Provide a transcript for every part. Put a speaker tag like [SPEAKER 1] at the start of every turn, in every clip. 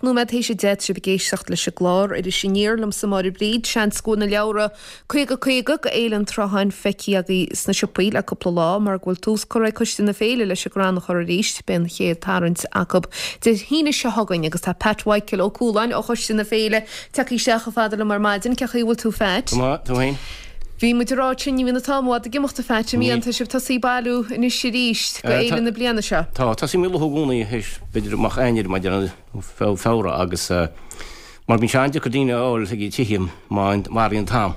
[SPEAKER 1] Nóiméad théis 10, tá sibh ag éisteacht leis an gclár Iris Aniar liomsa Máire Bríd. Seans go bhfuil na leabhra 50 50 go Fhéile an tSrutháin feicthe agaibh sna siopaí le cúpla lá mar go bhfuil tús curtha ag Coiste na Féile leis an gcrann a chur arís. Beidh an chéad tarraingt acu Dé hAoine seo chugainn agus tá Pat Mhichael Ó Cualáin ó Choiste na Féile tagtha isteach chomh fada liom ar maidin. Cén chaoi a bhfuil tú a Phat?
[SPEAKER 2] Go maith, tú féin?
[SPEAKER 1] Bhí muid ag rá sin, ní bhíonn an t-am i bhfad ag imeacht a Phat, an mbíonn? Tá sibh tosaithe ag bailiú anois arís go Féile na bliana seo.
[SPEAKER 2] Tá, tosaímid ag luathú i gcónaí théis b'fhéidir amach Eanáir maidir le Feabhra agus mar bíonn sé an-deacair daoine a fháil chuig tithe má athraíonn an t-am.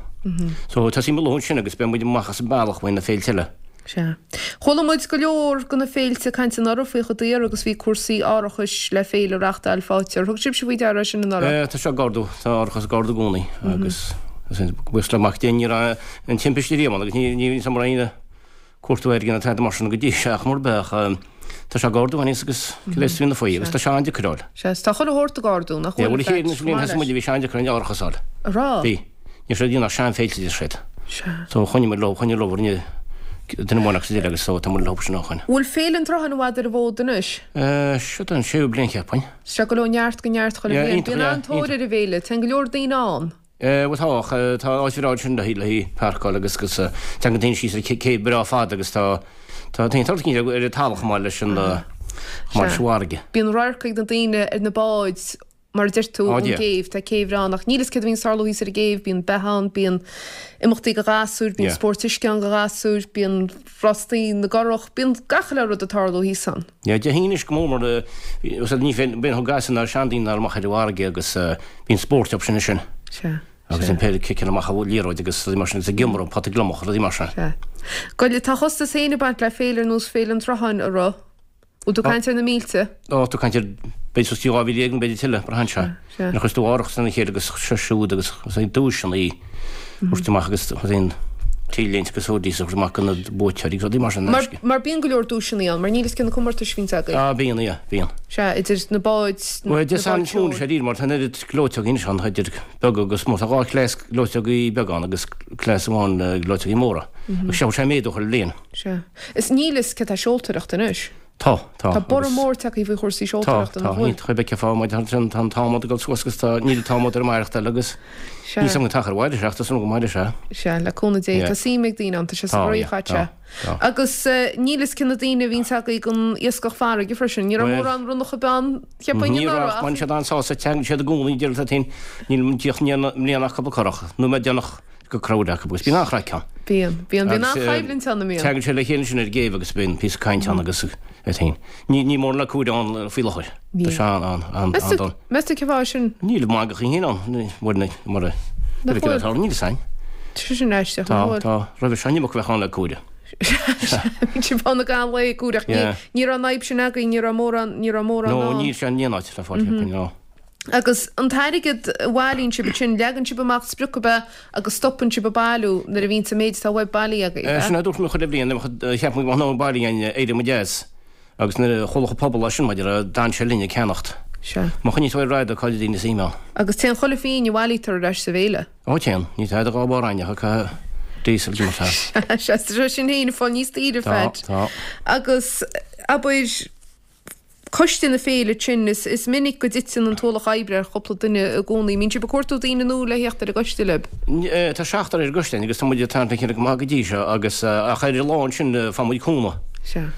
[SPEAKER 2] So tosaímid ag luathú ansin agus beidh muid amach as an bealach faoi na féilte eile.
[SPEAKER 1] Sea. Chuala muid go leor de na féilte ag caint anuraidh faoi chomh daor agus bhí cúrsaí árachais le féile a reachtáil faighte. Ar thug sibhse faoi deara é sin
[SPEAKER 2] anuraidh? Tá sé ag ardú, tá árachas ag ardú i gcónaí agus buíochas le Mac Dé ní raibh an timpiste riamh ann agus ní ní raibh aon cuartú airgid ná tada mar sin go dtí seo ach mar bheadh tá sé ag ardú aníos agus cibé is bhíonn faoi agus tá sé an-deacair a fháil.
[SPEAKER 1] Sea, tá chuile shórt ag ardú, nach
[SPEAKER 2] bhfuil? Bhuel, an chéad bhliain thosaigh muid bhí sé an-deacair an árachas a fháil.
[SPEAKER 1] An raibh?
[SPEAKER 2] Bhí. Ní raibh siad ag déanamh ach seanfhéilte deir siad.
[SPEAKER 1] Sea.
[SPEAKER 2] So choinnigh muid leo, choinnigh leo rinne duine amháin agus eile agus so tá muid leo sin ó shoin.
[SPEAKER 1] Bhfuil Féile an tSrutháin i bhfad ar an bhfód anois?
[SPEAKER 2] Eh, seo an séú bliain cheapfainn.
[SPEAKER 1] Sea, ag dul ó neart go neart chuile
[SPEAKER 2] Yeah,
[SPEAKER 1] bhliain.
[SPEAKER 2] iontach,
[SPEAKER 1] Bíonn
[SPEAKER 2] yeah,
[SPEAKER 1] an-tóir
[SPEAKER 2] iontach.
[SPEAKER 1] ar an bhféile, téann go leor daoine ann.
[SPEAKER 2] Eh, bhuel tá, ach tá áit bhreá ansin le haghaidh páirceáil agus agus teann daoine síos ar céibh breá fada agus tá tá tá tá ar an talamh chomh maith leis an chomh maith leis an bhfarraige.
[SPEAKER 1] Bíonn radharc ag na daoine ar na báid Mar a deir tú,
[SPEAKER 2] Á
[SPEAKER 1] ón
[SPEAKER 2] Dia.
[SPEAKER 1] gcéibh. Tá céibh bhreá ann ach níl fhios céard a bhíonn ag tarlú thíos ar an gcéibh, bíonn beatha ann, bíonn imeachtaí go ghasúir, bíonn
[SPEAKER 2] Yeah.
[SPEAKER 1] spóirt uisce ann go ghasúir, bíonn rástaí na gcurach, bíonn gach uile rud ag tarlú thíos ann.
[SPEAKER 2] Yeah, Dé hAoine anois go mór mar eh, ní bhíonn bíonn gasúir ná seandaoine ná amach ar an bhfarraige agus eh, bíonn spórt acu sin ansin.
[SPEAKER 1] Sea.
[SPEAKER 2] Agus
[SPEAKER 1] Sea.
[SPEAKER 2] an péire ciceanna amach an liathróid agus rudaí mar sin agus ag iomramh, pota gliomach, rudaí mar sin.
[SPEAKER 1] Sea. Goile, tá a chostas féin ag baint le féile ar nós Féile an Tsrutháin, a raibh. Bhfuil tú ag caint ar na mílte?
[SPEAKER 2] Ó, tú ag caint ar, b'fhéidir suas go dtí 12,000 nó b'fhéidir tuilleadh, braitheann sé.
[SPEAKER 1] Sea.
[SPEAKER 2] Nuair a chuireas tú árachas lena chéile agus seo siúd agus is é duaiseanna a thabhairt amach agus aon t-léinte agus hoodies a thabhairt amach do na buaiteoirí agus rudaí mar sin in
[SPEAKER 1] Mar,
[SPEAKER 2] aisce.
[SPEAKER 1] mar bíonn go leor duaiseanna ann, mar níl fhios cé na comórtais a bhíonns agaibh.
[SPEAKER 2] Ah, bíonn, yeah, bíonn.
[SPEAKER 1] Sea, idir na báid, na
[SPEAKER 2] Bhuel, Dé
[SPEAKER 1] báid
[SPEAKER 2] Sathairn is mó
[SPEAKER 1] seoil.
[SPEAKER 2] sé díreach mar tá an oiread gleoiteogaí anois ann, idir beaga agus mór. Tá dhá chleas gleoiteogaí beaga ann agus cleas amháin gleoiteogaí móra. Agus seo sé méadú chuile bhliain.
[SPEAKER 1] Sea. Is níl fhios cé tá seoltóireacht anois.
[SPEAKER 2] Tá, tá.
[SPEAKER 1] Tá borradh mór tagtha faoi chúrsaí
[SPEAKER 2] Tá,
[SPEAKER 1] seoltóireachta,
[SPEAKER 2] tá.
[SPEAKER 1] nach bhfuil?
[SPEAKER 2] Iontach a bheith fá mar tá an t-adhmad ag dul suas agus tá, níl an t-adhmad ar an maireachtáil agus
[SPEAKER 1] Sea.
[SPEAKER 2] níl 's agam an t-achar mhairfidh sé ach tá súil agam go mairfidh sé.
[SPEAKER 1] Sea, le cúnamh Dé.
[SPEAKER 2] Yeah.
[SPEAKER 1] Tá suim ag daoine ann, tá sé sa
[SPEAKER 2] Tá,
[SPEAKER 1] gcroí
[SPEAKER 2] yeah,
[SPEAKER 1] chaite.
[SPEAKER 2] tá, tá.
[SPEAKER 1] Agus níl fhios cé na daoine a bhíonns agaibh don iascach farraige freisin. Ní raibh
[SPEAKER 2] Bhuel,
[SPEAKER 1] mórán ronnach ag bean, cheapfainn
[SPEAKER 2] ní raibh
[SPEAKER 1] anuraidh
[SPEAKER 2] ach
[SPEAKER 1] ach
[SPEAKER 2] bhain siad an-sásamh, teangann siad i gcónaí, deir siad féin, níl an díoch mbliana ach cúpla curach, nóiméad déanach go crowd acu agus bíonn an-chraic ann.
[SPEAKER 1] Bíonn. Bíonn. Bíonn
[SPEAKER 2] Agus
[SPEAKER 1] an-choimhlint ann, an mbíonn?
[SPEAKER 2] Tagann siad le chéile ansin ar an gcéibh agus bíonn píosa cainte ann agus é féin. Ní, ní mórán le cúigear ann faoi láthair. Tá
[SPEAKER 1] Níl.
[SPEAKER 2] sé an, an, an,
[SPEAKER 1] Meas tú,
[SPEAKER 2] an-dona.
[SPEAKER 1] meas tú cén fáth sin?
[SPEAKER 2] Níl mangachaí féin ann, ní, mar, mar a,
[SPEAKER 1] Nach
[SPEAKER 2] bhfuil.
[SPEAKER 1] bhfuil?
[SPEAKER 2] Níl fhios a'inn.
[SPEAKER 1] Tá sé sin aisteach,
[SPEAKER 2] Tá,
[SPEAKER 1] nach bhfuil?
[SPEAKER 2] tá. Roimhe seo an iomarca a bheadh ann le cúigear.
[SPEAKER 1] Bhíonn sibh ann ag an lae ag cúireach. Ní,
[SPEAKER 2] Yeah.
[SPEAKER 1] ní raibh an fhadhb sin againn, ní raibh mórán, ní raibh mórán
[SPEAKER 2] No,
[SPEAKER 1] ann.
[SPEAKER 2] níl sé in aon áit le fáil, cheapfainn, no.
[SPEAKER 1] Agus an t-airgead a bhailíonn sibh ansin, leagann sibh amach sprioc ab ea agus stopann sibh ag bailiú nuair a bhíonns an méid atá uaibh bailithe agaibh,
[SPEAKER 2] Sin
[SPEAKER 1] ea?
[SPEAKER 2] a dúirt mé chuile bhliain, cheap mé go mbeadh an bailithe againn, éireoidh muid as. Agus nuair a chuala an pobal é sin, maidir le, d'fhan sé linn ag ceannacht.
[SPEAKER 1] Sea.
[SPEAKER 2] Má choinníonn tú ar raidió, cá bhfuil daoine suim ann?
[SPEAKER 1] Agus téann chuile phingin a bhailítear ar ais sa bhféile.
[SPEAKER 2] Ó téann, ní tada dhá bharr aithne acu diesel de mar
[SPEAKER 1] Sea, sea, tá sé sin féin ag fáil níos daoire,
[SPEAKER 2] Tá,
[SPEAKER 1] Phat.
[SPEAKER 2] tá.
[SPEAKER 1] Agus, abair, Coiste na Féile sin, is minic go dtiteann an t-ualach oibre ar chúpla duine i gcónaí. Mbíonn sibh ag cuartú daoine nua le theacht ar an gcoiste libh?
[SPEAKER 2] Tá seachtar ar an gcoiste agus tá muid ag tarraingt le chéile go maith go dtí seo agus ach ar an lá ansin faigheann muid cúnamh.
[SPEAKER 1] Sea.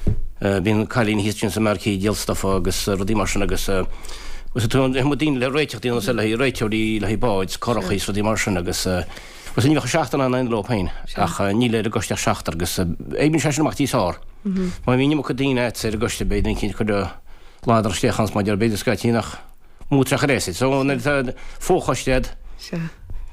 [SPEAKER 2] Bíonn cailín thíos ansin sa marquee ag díol stufa agus rudaí mar sin agus agus tá muid daoine le réiteach daoine le haghaidh réiteoirí le haghaidh báid, curachaí is rudaí mar sin agus Agus ní bheadh seachtar in ann leo féin, ach níl ar an gcoiste ach seachtar agus oibríonn sé sin amach níos fearr. Má bhíonn iomarca daoine agat ar an gcoiste beidh duine eicínt ag cur ladar isteach ann mar b'fhéidir scaití nach mó treoch ar aos. So nuair atá fochoiste agat,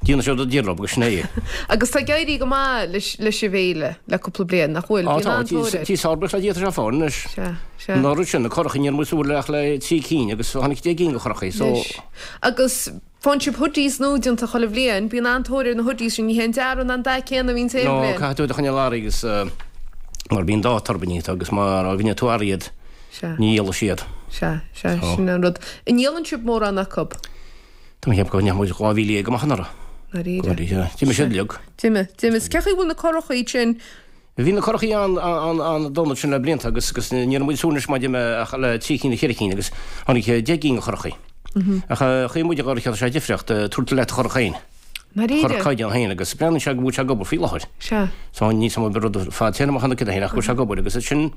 [SPEAKER 2] déanann siad a d'iarraidh agus sin é.
[SPEAKER 1] Agus tá ag éirí go maith leis an bhféile le cúpla bliain, nach bhfuil?
[SPEAKER 2] Á
[SPEAKER 1] Bíonn
[SPEAKER 2] tá,
[SPEAKER 1] an-tóir air.
[SPEAKER 2] tí sár-bhreá le Dia tá sé fáil anois.
[SPEAKER 1] Sea, sea.
[SPEAKER 2] An oiread sin, na curachaí ní raibh muid ag súil ach le trí cinn agus tháinig 10 gcinn de churachaí so.
[SPEAKER 1] Anois. Agus Faigheann sibh hoodies nua déanta chuile bhliain. Bíonn an-tóir ar na hoodies sin. Ní hé an dearadh ná an dath céanna a bhíonns aon
[SPEAKER 2] No,
[SPEAKER 1] bhliain.
[SPEAKER 2] caithfidh tú iad a choinneáil ar agus mar bíonn dáta orthu níos agus má rinne tú athraigh iad,
[SPEAKER 1] Sea.
[SPEAKER 2] ní dhíolfaidh siad.
[SPEAKER 1] Sea, sea,
[SPEAKER 2] So.
[SPEAKER 1] sin an rud. An ndíolann sibh mórán acu?
[SPEAKER 2] Tá mé ag ceapadh go ndeachaigh muid 12,000 amach anuraidh.
[SPEAKER 1] Dáiríre.
[SPEAKER 2] Dáiríre. D'imigh siad uilig.
[SPEAKER 1] D'imigh, d'imigh. Cén chaoi a bhfuil na curachaí sin?
[SPEAKER 2] Bhí na curachaí an-dona ansin le blianta agus agus ní raibh muid ag súil anois maidir ach le trí cinn nó ceithre cinn agus tháinig 10 gcinn de churachaí. Ach chaoi muid a dhul ar sé difríocht, tabhairt leat do churach féin.
[SPEAKER 1] Ndáiríre?
[SPEAKER 2] Curach caighdeán féin agus breathnaíonn sé go bhfuil sé ag obair faoi láthair.
[SPEAKER 1] Sea.
[SPEAKER 2] So ní sam rud fadtéarmach an cid féin ach go bhfuil sé ag obair agus sin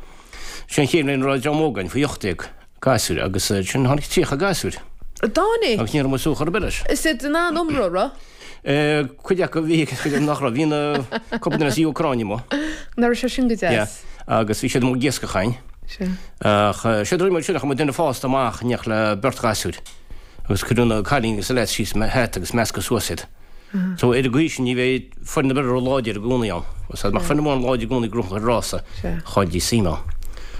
[SPEAKER 2] sin an chéad bhliain a raibh dream óg againn faoi 18 gasúir agus sin tháinig 30 gasúir.
[SPEAKER 1] Dtáinig?
[SPEAKER 2] Agus ní raibh muid suas chor ar bith leis.
[SPEAKER 1] Is iad in ann iomramh, raibh?
[SPEAKER 2] Cuid acu bhí agus cuid acu nach raibh. Bhí na cúpla duine as Úcráin amuigh.
[SPEAKER 1] Nach raibh sé sin go deas?
[SPEAKER 2] Yeah. Agus bhí siad amuigh ag iascach againn.
[SPEAKER 1] Sea.
[SPEAKER 2] Ach séard a rinne muid sin, chuir muid duine fásta amach in éineacht le beirt ghasúir. Agus cuireadh na cailíní agus na leaids síos sa hata agus meascadh suas iad. So ar an gcaoi sin ní bheidh foireann ar bith ró-láidir i gcónaí ann. Agus dá mbeadh foireann amháin láidir i gcónaí ag gnóthachan rása, chailltí suim ann.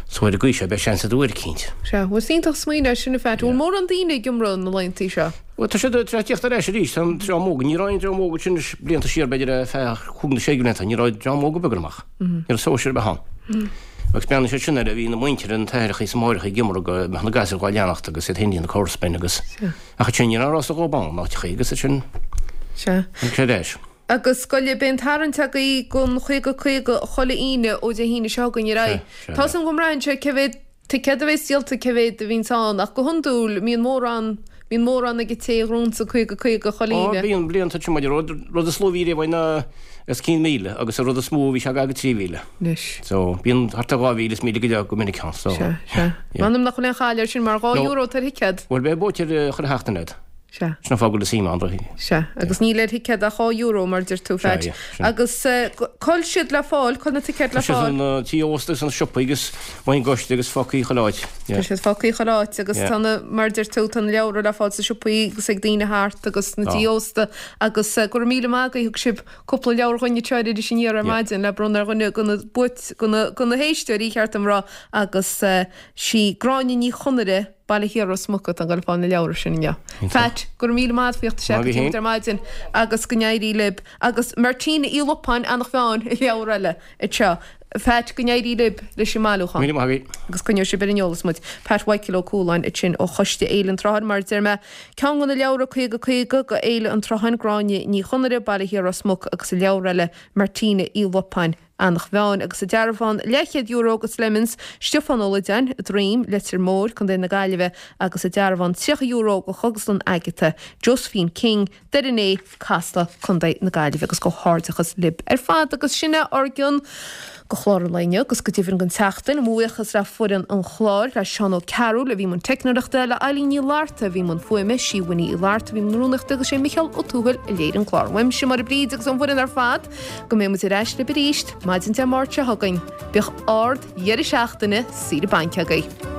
[SPEAKER 2] So ar an gcaoi seo beidh seans ag uair eicínt.
[SPEAKER 1] Sea. Bhuel is iontach smaoineamh é sin a Phat. Bhfuil mórán daoine ag iomramh na laethanta seo?
[SPEAKER 2] Bhuel, tá siad tar éis tíocht ar ais arís, tá an dream óg, ní raibh aon dream óg ansin blianta siar, b'fhéidir ar feadh chúig nó sé de bhlianta, ní raibh dream óg ar bith ag dul amach. Ní raibh sóisear ar bith ann. Agus breathnaíonn siad sin air, bhí na muintir, na t-aithreacha is na máithreacha ag iomramh go mbeadh na gasúir dhá leanacht agus iad féin ag déanamh comharsain agus ach ansin ní raibh aon rása dhóibh ann, áiteachaí agus ansin
[SPEAKER 1] Sea.
[SPEAKER 2] tháinig sé ar ais.
[SPEAKER 1] Agus scoile, beidh an tarraingt agaibh don 50 50 chuile Aoine ó Dé hAoine seo chugainn ar aghaidh. Tá 's agam go mbraitheann sé cé mhéad ticéad a bheas díolta, cé mhéad a bhíonns ann, ach go hiondúil mbíonn mórán, bíonn mórán ag an té a ghnóthaíonns an 50 50 chuile
[SPEAKER 2] Ó,
[SPEAKER 1] Aoine.
[SPEAKER 2] bíonn, blianta sin maidir, rud, rud is lú a bhí riamh ná os cionn 1,000 agus an rud is mó a bhí sé gar go 3,000.
[SPEAKER 1] Anois.
[SPEAKER 2] So, bíonn thart ar 2,000 is 1,000 go leith go minic ann, so.
[SPEAKER 1] Sea, sea.
[SPEAKER 2] Yeah.
[SPEAKER 1] M'anam nach bhfuil aon chaill air sin mar €2
[SPEAKER 2] No.
[SPEAKER 1] atá ar thicéad.
[SPEAKER 2] Bhuel, beidh buaiteoir chuile sheachtain agat.
[SPEAKER 1] Sea.
[SPEAKER 2] Sin an fáth go bhfuil suim ann.
[SPEAKER 1] Sea, agus níl ar thicéad ach €2, mar a deir tú, Phat.
[SPEAKER 2] Sea, sin.
[SPEAKER 1] Agus cá bhfuil siad le fáil, cá bhfuil na ticéid le
[SPEAKER 2] Tá siad
[SPEAKER 1] fáil?
[SPEAKER 2] sna tithe ósta agus sna siopaí agus amuigh ón gcoiste agus fágtha chuile áit.
[SPEAKER 1] Tá siad fágtha chuile áit agus tá na, mar a deir tú, tá na leabhra le fáil sna siopaí agus ag daoine thart agus sna tithe ósta agus go raibh míle maith agaibh, thug sibh cúpla leabhar dhuinn anseo ar Iris Aniar ar maidin le bronnadh ar dhuine de na buait, de na héisteoirí, cheart dom a rá, agus sí Gráinne Ní Chonaire, Baile Thiar Ros Muc atá ag dul a fáil na leabhra sin inniu. Phat, go raibh míle maith agat faoi theacht isteach go dtí muid ar maidin agus go n-éirí libh. Agus Martina Uí Lupáin, Eanach Mheáin, leabhar eile anseo. Phat, go n-éirí libh leis an mbailiúchán.
[SPEAKER 2] Míle maith agaibh.
[SPEAKER 1] Agus coinneoidh sibh ar an eolas muid. Pat Mhichael Ó Cualáin ansin ó Choiste Fhéile an tSrutháin. Mar a deir mé, ceann de na leabhra 50 50 go Fhéile an tSrutháin, Gráinne Ní Chonaire, Baile Thiar Ros Muc agus an leabhar eile, Martina Uí Lupáin, Eanach Mheáin agus an dearbhán leathchéad euro go Slemons, Stiofán Ó Loideáin, Droim, Leitir Móir, Co. na Gaillimhe agus an dearbhán €30 go Chógaslann Agatha, Josephine King, Doire an Fhéich, Casla, Co. na Gaillimhe agus comhghairdeachas libh ar fad agus sin é ár gcion go chlár an lae inniu agus go deimhin don tseachtain. Mo bhuíochas le foireann an chláir, le Seán Ó Cearúil a bhí i mbun teicneoireachta, le Eileen Ní Fhlatharta a bhí i mbun fuaime, sí Winnie Uí Fhlatharta a bhí i mbun rúnaíochta agus sé Micheál Ó Tuathail a léirigh an clár. Uaimse Máire Bríd agus ón bhfoireann ar fad. Go mbeidh muid ar ais libh arís maidin Dé Máirt seo chugainn. Bíodh ard dheireadh seachtaine saoire bainc agaibh.